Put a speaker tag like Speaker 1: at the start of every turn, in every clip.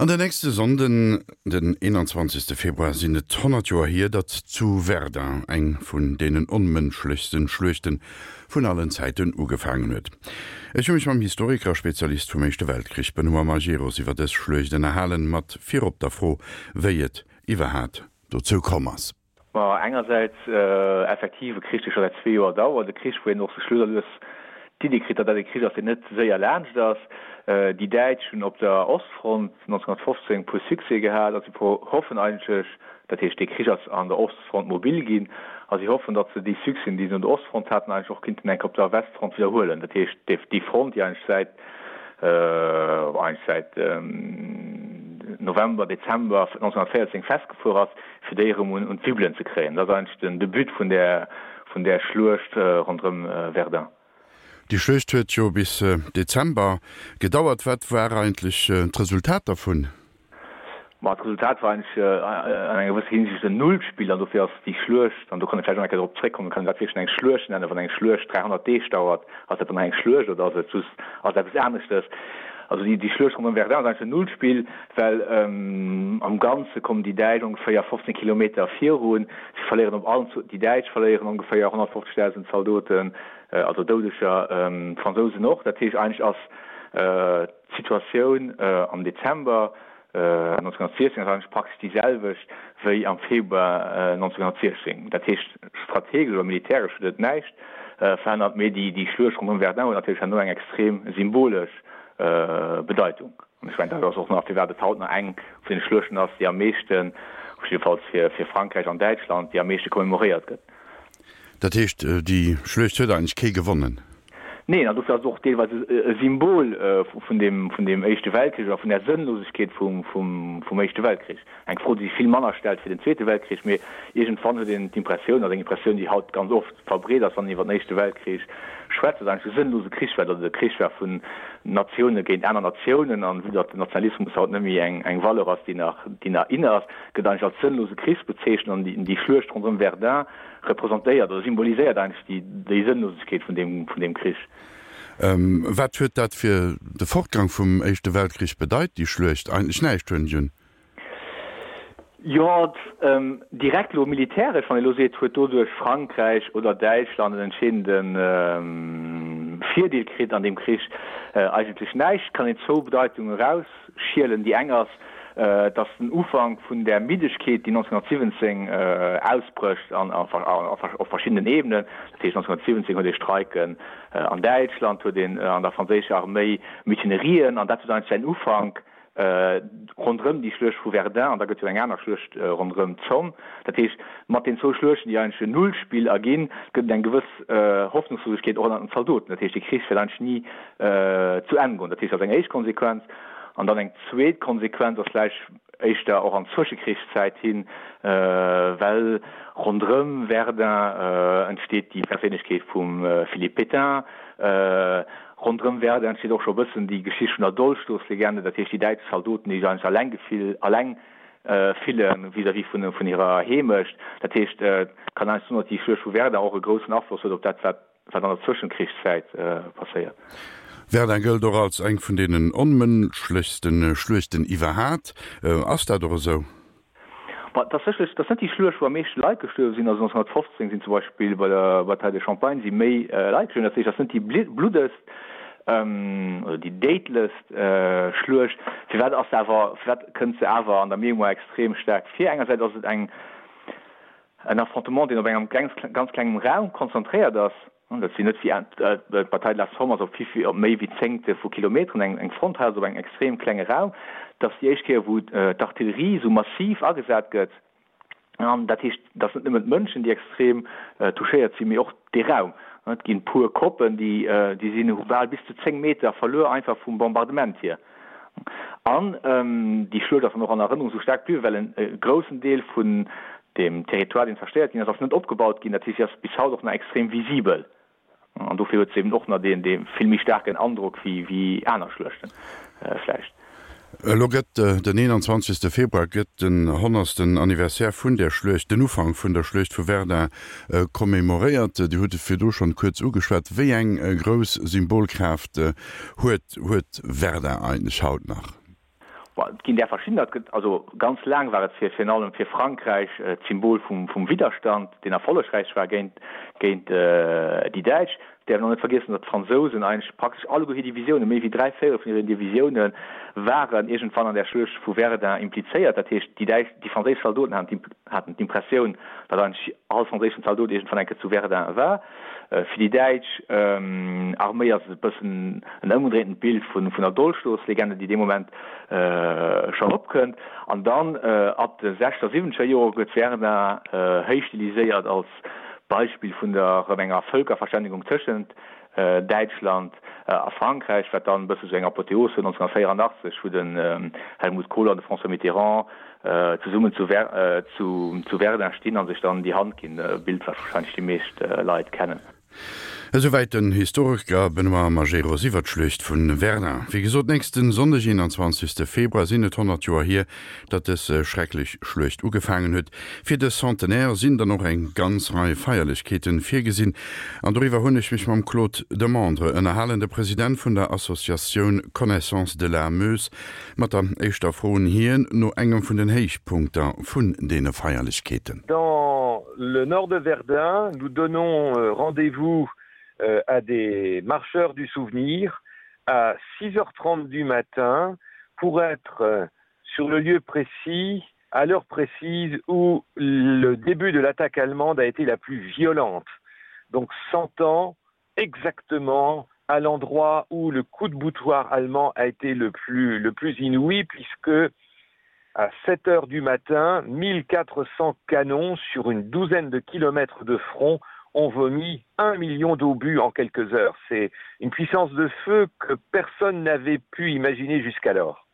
Speaker 1: An den nächste Sonnden, den 21. Februar, sinn et 100 Joer hier, datt zu Verdun eng vun deenen onmënschlechsten Schluechten vun allen Zäiten ugefaangen huet. Ech hu mech mam Historiker a Spezialist vum Éischte Weltkrich Benoît Majerus iwwer dës Schluecht ënnerhalen, mat virop der Fro, wéi et iwwerhaat dozou komm ass.
Speaker 2: Ma engersäits effektiv e Krich, dee scho säit zwee Joer dauert, e Krich, wou een och sech lues a lues d'Iddi kritt, datt dat e Krich ass, deen net séier laanscht ass. Déi Däitsch hunn op der Ostfront 1915 e puer Succèse gehat a si hoffen eigentlech, dat heescht, dee Krich ass an der Ostfront mobil ginn, a si hoffen, datt se déi Succèsen, déi se un der Ostfront haten, eigentlech och kinnten eng Kéier op der Westfront widderhuelen. Dat heescht, déi Front, déi eigentlech säit eigentlech säit November, Dezember 1914 festgefuer ass, fir déi erëm un d'Wibbelen ze kréien. Dat ass eigentlech den de But vun där, vun där Schluecht ronderëm Verdun.
Speaker 1: Déi Schluecht huet jo bis Dezember gedauert. Wat war eigentlech d'Resultat dervun?
Speaker 2: Ma d'Resultat war eigentlech an enger gewësser Hinsicht en Nullspill an dofir ass déi Schluecht, an do kann ee vläicht och eng Kéier drop zréckkommen, kann een dat wierklech eng Schluecht nennen, wann eng Schluecht 300 Deeg dauert, ass dat dann nach eng Schluecht oder ass et just, ass et eppes aneschtes? Also déi Schluecht ronderëm Verdun ass eigentlech en Nullspill, well am Ganze kommen déi Däitsch ongeféier 15 Kilometer virun. Si verléieren op allen, déi Däitsch verléieren ongeféier 150.000 Zaldoten, also Doudeger, d'Fransousen och. Dat heescht eigentlech ass d'Situatioun am Dezember 1916 ass eigentlech praktesch déi selwecht wéi am Februar 1916. Dat heescht, strategesch oder militäresch huet et näischt verännert, mee déi Schluecht ronderëm Verdun huet natierlech herno eng extrem symbolesch Bedeitung. An ech mengen, dat ass och nach, firwat et haut nach eng vun den Schluechten ass, déi am meeschten, jiddefalls fir Frankräich an Däitschland, déi am meeschte commemoréiert gëtt.
Speaker 1: Dat heescht, déi Schluecht huet eigentlech kee gewonnen?
Speaker 2: Neen, an dofir ass et och deelweis e Symbol vun deem, vun deem Éischte Weltkrich oder vun där Sënnlosegkeet vum, vum, vum Éischte Weltkrich. Eng Fro, déi sech vill manner stellt fir den Zweete Weltkrich, mee iergendwann huet een d'Impressioun, also eng Impressioun, déi haut ganz oft verbreet ass, wann een iwwer den Éischte Weltkrich schwätzt, datt eigentlech e sënnlose Krich war, datt et e Krich war vun Natioune géint aner Natiounen, an vue datt den Nationalismus haut net méi eng, eng Valeur ass, déi nach, déi nach in ass, gëtt eigentlech als sënnlose Krich bezeechent an déi, déi Schluecht ronderëm Verdun representéiert oder symboliséiert eigentlech déi Sënnlosegkeet vun deem, vun deem Krich.
Speaker 1: Wat huet dat fir de Fortgang vum Éischte Weltkrich bedeit, déi Schluecht? Eigentlech näischt, hunn ech un.
Speaker 2: Jo, direkt elo militäresch, wann ee elo seet, huet doduerch Frankräich oder Däitschland en entscheedende Virdeel kritt an deem Krich? Eigentlech näischt. Et kann een zwou Bedeitungen erausschielen. Déi eng ass, Et ass den Ufank vun där Middegkeet, déi 1917 ausbrécht an op verschiddenen Ebenen. Dat heescht, 1917 huet ee Streiken an Däitschland, huet een an der franséischer Arméi Mutinerien, an dat huet eigentlech säin Ufank ronderëm déi Schluecht vu Verdun, an da gëtt jo eng aner Schluecht ronderëm d'Somme. Dat heescht, mat den zwou Schluechten, déi eigentlech en Nullspill erginn, gëtt et eng gewëss Hoffnungslosegkeet och ënnert den Zaldoten. Dat heescht, de Krich wäert eigentlech ni zu Enn goen. Dat heescht, dat ass eng éischt Konsequenz. An dann eng zweet Konsequenz ass vläicht éischter och an d'Zwëschekrichszäit hin, well ronderëm Verdun entsteet déi Perséinlechkeet vum Philippe Pétain. Ronderëm Verdun entsteet och scho e bëssen déi Geschicht vun der Dolchstoßlegende, dat heescht déi däitsch Zaldoten, déi sech eigentlech alleng gefill, alleng fille vis-à-vis vun hirer Heemecht. Dat heescht, et kann eigentlech soen, datt déi Schluecht vu Verdun och e groussen Afloss huet op dat, wat Wat an der Zwëschenkrichszäit passéiert.
Speaker 1: Verdun gëllt och als eng vun deenen onmënschlechste Schluechten iwwerhaat. Ass dat och esou?
Speaker 2: Ma et ass sécherlech, et ass net déi Schluecht wou am meeschte Leit gestuerwe sinn. Also 1915 sinn zum Beispill bei der Bataille de Champagne si méi Leit gestuerwen. Dat heescht, et ass net déi bluddegst oder déi déidlechst Schluecht. Firwat ass se awer, firwat kënnt se awer an der Mémoire extrem staark vir? Engersäits ass et eng En Affrontement, deen op engem ganz klengem Raum konzentréiert ass. Dat sinn net wéi d'Bataille de la Somme ass op vill, op méi wéi Zéngte vu Kilometeren eng Front, hei ass et op engem extrem klenge Raum. Dat ass déi éischt Kéier, wou d'Artillerie esou massiv agesat gëtt. An dat heescht, et ass net nëmmen d'Mënschen, déi extrem touchéiert sinn, mee och dee Raum. Et ginn puer Koppen, déi sinn, hu bal bis zu 10 Meter verluer, einfach vum Bombardement hier. An déi Schluecht ass dann och an Erënnerung esou staark bliwwen, well e groussen Deel vun deem Territoire, deen zerstéiert ginn ass, ass net opgebaut ginn. Dat heescht, si ass bis haut och nach extrem visibel. An dofir huet se eben och nach deen vill méi staarken Androck wéi aner Schluechte vläicht.
Speaker 1: Elo gëtt den 21. Februar gëtt den honnertsten Anniversaire vun där Schluecht, den Ufank vun der Schluecht vu Verdun, commemoréiert. Dir hutt et virdu schonn kuerz ugeschwat. Wéi eng grouss Symbolkraaft huet huet Verdun eigentlech haut nach?
Speaker 2: Et ginn där verschiddener. Et gëtt also ganz laang war et fir virun allem fir Frankräich d'Symbol vum vum Widderstand, deen erfollegräich war géint géint déi Däitsch. Et däerf een och net vergiessen, datt d'Fransousen eigentlech praktesch alleguer hir Divisiounen, méi wéi 3/4 vun hiren Divisioune waren iergendwann an där Schluecht vu Verdun implizéiert. Dat heescht, déi däitsch, déi franséisch Zaldoten haten d'Impressioun, datt eigentlech all franséischen Zaldot iergendwann eng Kéier zu Verdun war. Fir déi däitsch Arméi ass et e bëssen en ëmgedréintent Bild vun der Dolchstoßlegende, déi dee Moment schonn opkënnt. An dann ab de sechzeger, siwwenzeger Jore gëtt Verdun héich stiliséiert als Beispill vun der erëm enger Vëlkerverständigung tëschent Däitschland a Frankräich, wat dann e bësse sou eng Apotheos huet 1984, wou den Helmut Kohl an de François Mitterrand zesummen zu Verdun stinn a sech dann déi Hand ginn, e Bild, wat warscheinlech déi meescht Leit kennen.
Speaker 1: Esouwäit den Historiker Benoît Majerus iwwer d'Schluecht vu Verdun. Wéi gesot, nächste Sonndeg, 21 Februar, sinn et 100 Joer hier, datt dës schrecklech Schluecht ugefaangen huet. Fir de Centenaire sinn dann och eng ganz Rei Feierlechkeeten virgesinn. An doriwwer hunn ech mech mam Claude Demandre ënnerhalen, de President vun der Associatioun Connaissance de la Meuse. Mat der éischter Fro un hien no engem vun den Héichpunkter vun deene Feierlechkeeten.
Speaker 3: Dans le nord de Verdun, nous donnons rendez-vous à des marcheurs du souvenir à 6h30 du matin pour être sur le lieu précis, à l'heure précise où le début de l'attaque allemande a été la plus violente. Donc 100 ans exactement à l'endroit où le coup de boutoir allemand a été le plus, le plus inouï puisque à 7 heures du matin, 1400 canons sur une douzaine de kilomètres de front ont vomi un million d'obus en quelques heures. C'est une puissance de feu que personne n'avait pu imaginer jusqu'alors.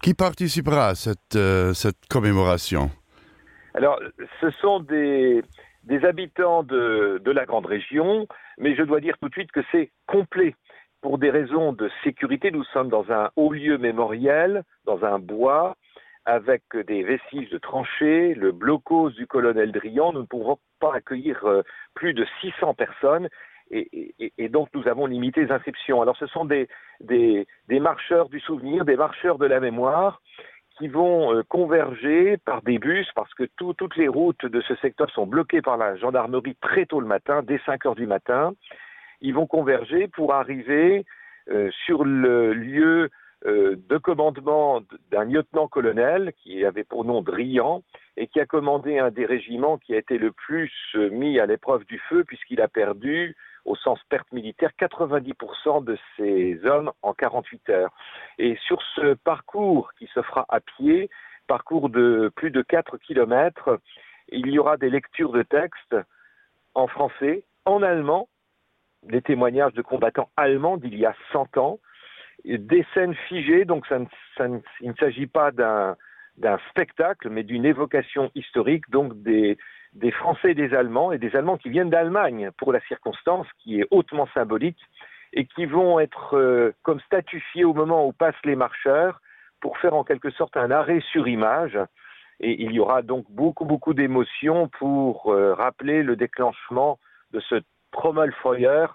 Speaker 1: Qui participera à cette, euh, cette commémoration
Speaker 3: Alors ce sont des, des habitants de, de la grande région, mais je dois dire tout de suite que c'est complet. Pour des raisons de sécurité, nous sommes dans un haut lieu mémoriel, dans un bois, avec des vestiges de tranchées, le blocos du colonel Drian, nous ne pourrons pas accueillir euh, plus de 600 personnes et, et, et donc nous avons limité les inscriptions. Alors ce sont des, des, des marcheurs du souvenir, des marcheurs de la mémoire qui vont euh, converger par des bus parce que tout, toutes les routes de ce secteur sont bloquées par la gendarmerie très tôt le matin, dès 5 heures du matin. Ils vont converger pour arriver euh, sur le lieu euh, de commandement d'un lieutenant-colonel qui avait pour nom Drian et qui a commandé un des régiments qui a été le plus euh, mis à l'épreuve du feu puisqu'il a perdu au sens perte militaire 90% de ses hommes en 48 heures. Et sur ce parcours qui se fera à pied, parcours de plus de 4 km, il y aura des lectures de textes en français, en allemand, des témoignages de combattants allemands d'il y a 100 ans, des scènes figées, donc ça ne, ça ne, il ne s'agit pas d'un d'un spectacle, mais d'une évocation historique, donc des, des Français et des Allemands, et des Allemands qui viennent d'Allemagne pour la circonstance qui est hautement symbolique, et qui vont être euh, comme statufiés au moment où passent les marcheurs pour faire en quelque sorte un arrêt sur image. Et il y aura donc beaucoup, beaucoup d'émotions pour euh, rappeler le déclenchement de ce Trommelfeuer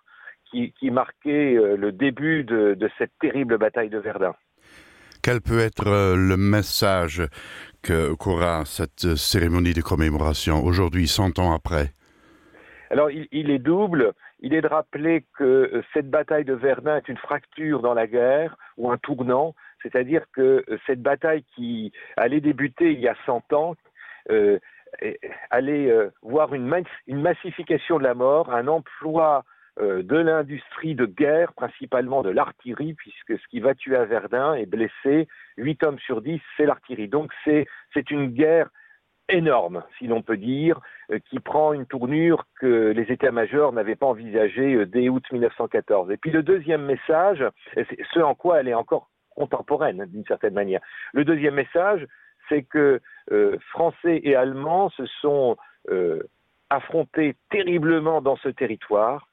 Speaker 3: qui, qui marquait euh, le début de, de cette terrible bataille de Verdun.
Speaker 1: Quel peut être euh, le message que qu'aura cette cérémonie de commémoration aujourd'hui, 100 ans après
Speaker 3: Alors il, il est double. Il est de rappeler que euh, cette bataille de Verdun est une fracture dans la guerre ou un tournant, c'est-à-dire que euh, cette bataille qui allait débuter il y a 100 ans, euh, allait euh, voir une, mas une massification de la mort, un emploi euh, de l'industrie de guerre, principalement de l'artillerie, puisque ce qui va tuer à Verdun et blesser 8 hommes sur 10, c'est l'artillerie. Donc c'est une guerre énorme, si l'on peut dire, euh, qui prend une tournure que les états-majors n'avaient pas envisagée euh, dès août 1914. Et puis le deuxième message, ce en quoi elle est encore contemporaine d'une certaine manière. Le deuxième message, c'est que euh, Français et Allemands se sont euh, affrontés terriblement dans ce territoire.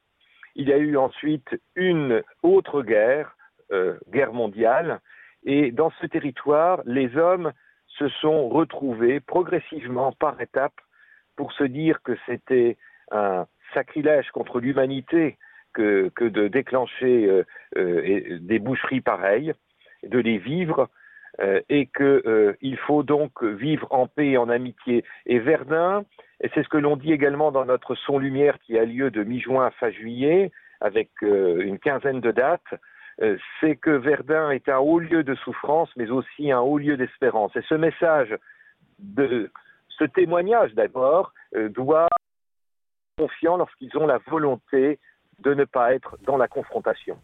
Speaker 3: Il y a eu ensuite une autre guerre, euh, guerre mondiale, et dans ce territoire, les hommes se sont retrouvés progressivement par étapes pour se dire que c'était un sacrilège contre l'humanité que, que de déclencher euh, euh, des boucheries pareilles, de les vivre. Euh, et qu'il euh, faut donc vivre en paix et en amitié. Et Verdun, et c'est ce que l'on dit également dans notre son lumière qui a lieu de mi-juin à fin juillet, avec euh, une quinzaine de dates, euh, c'est que Verdun est un haut lieu de souffrance, mais aussi un haut lieu d'espérance. Et ce message de ce témoignage d'abord euh, doit confiant lorsqu'ils ont la volonté de ne pas être dans la confrontation.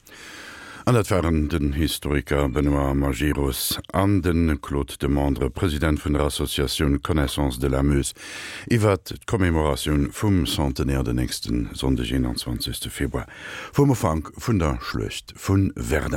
Speaker 1: An dat waren den Historiker Benoît Majerus an de Claude Demandre, President vun der Associatioun Connaissance de la Meuse, iwwert d'Commémoratioun vum Centenaire den nächste Sonndeg, 21 Februar, vum Ufank vun der Schluecht vu Verdun.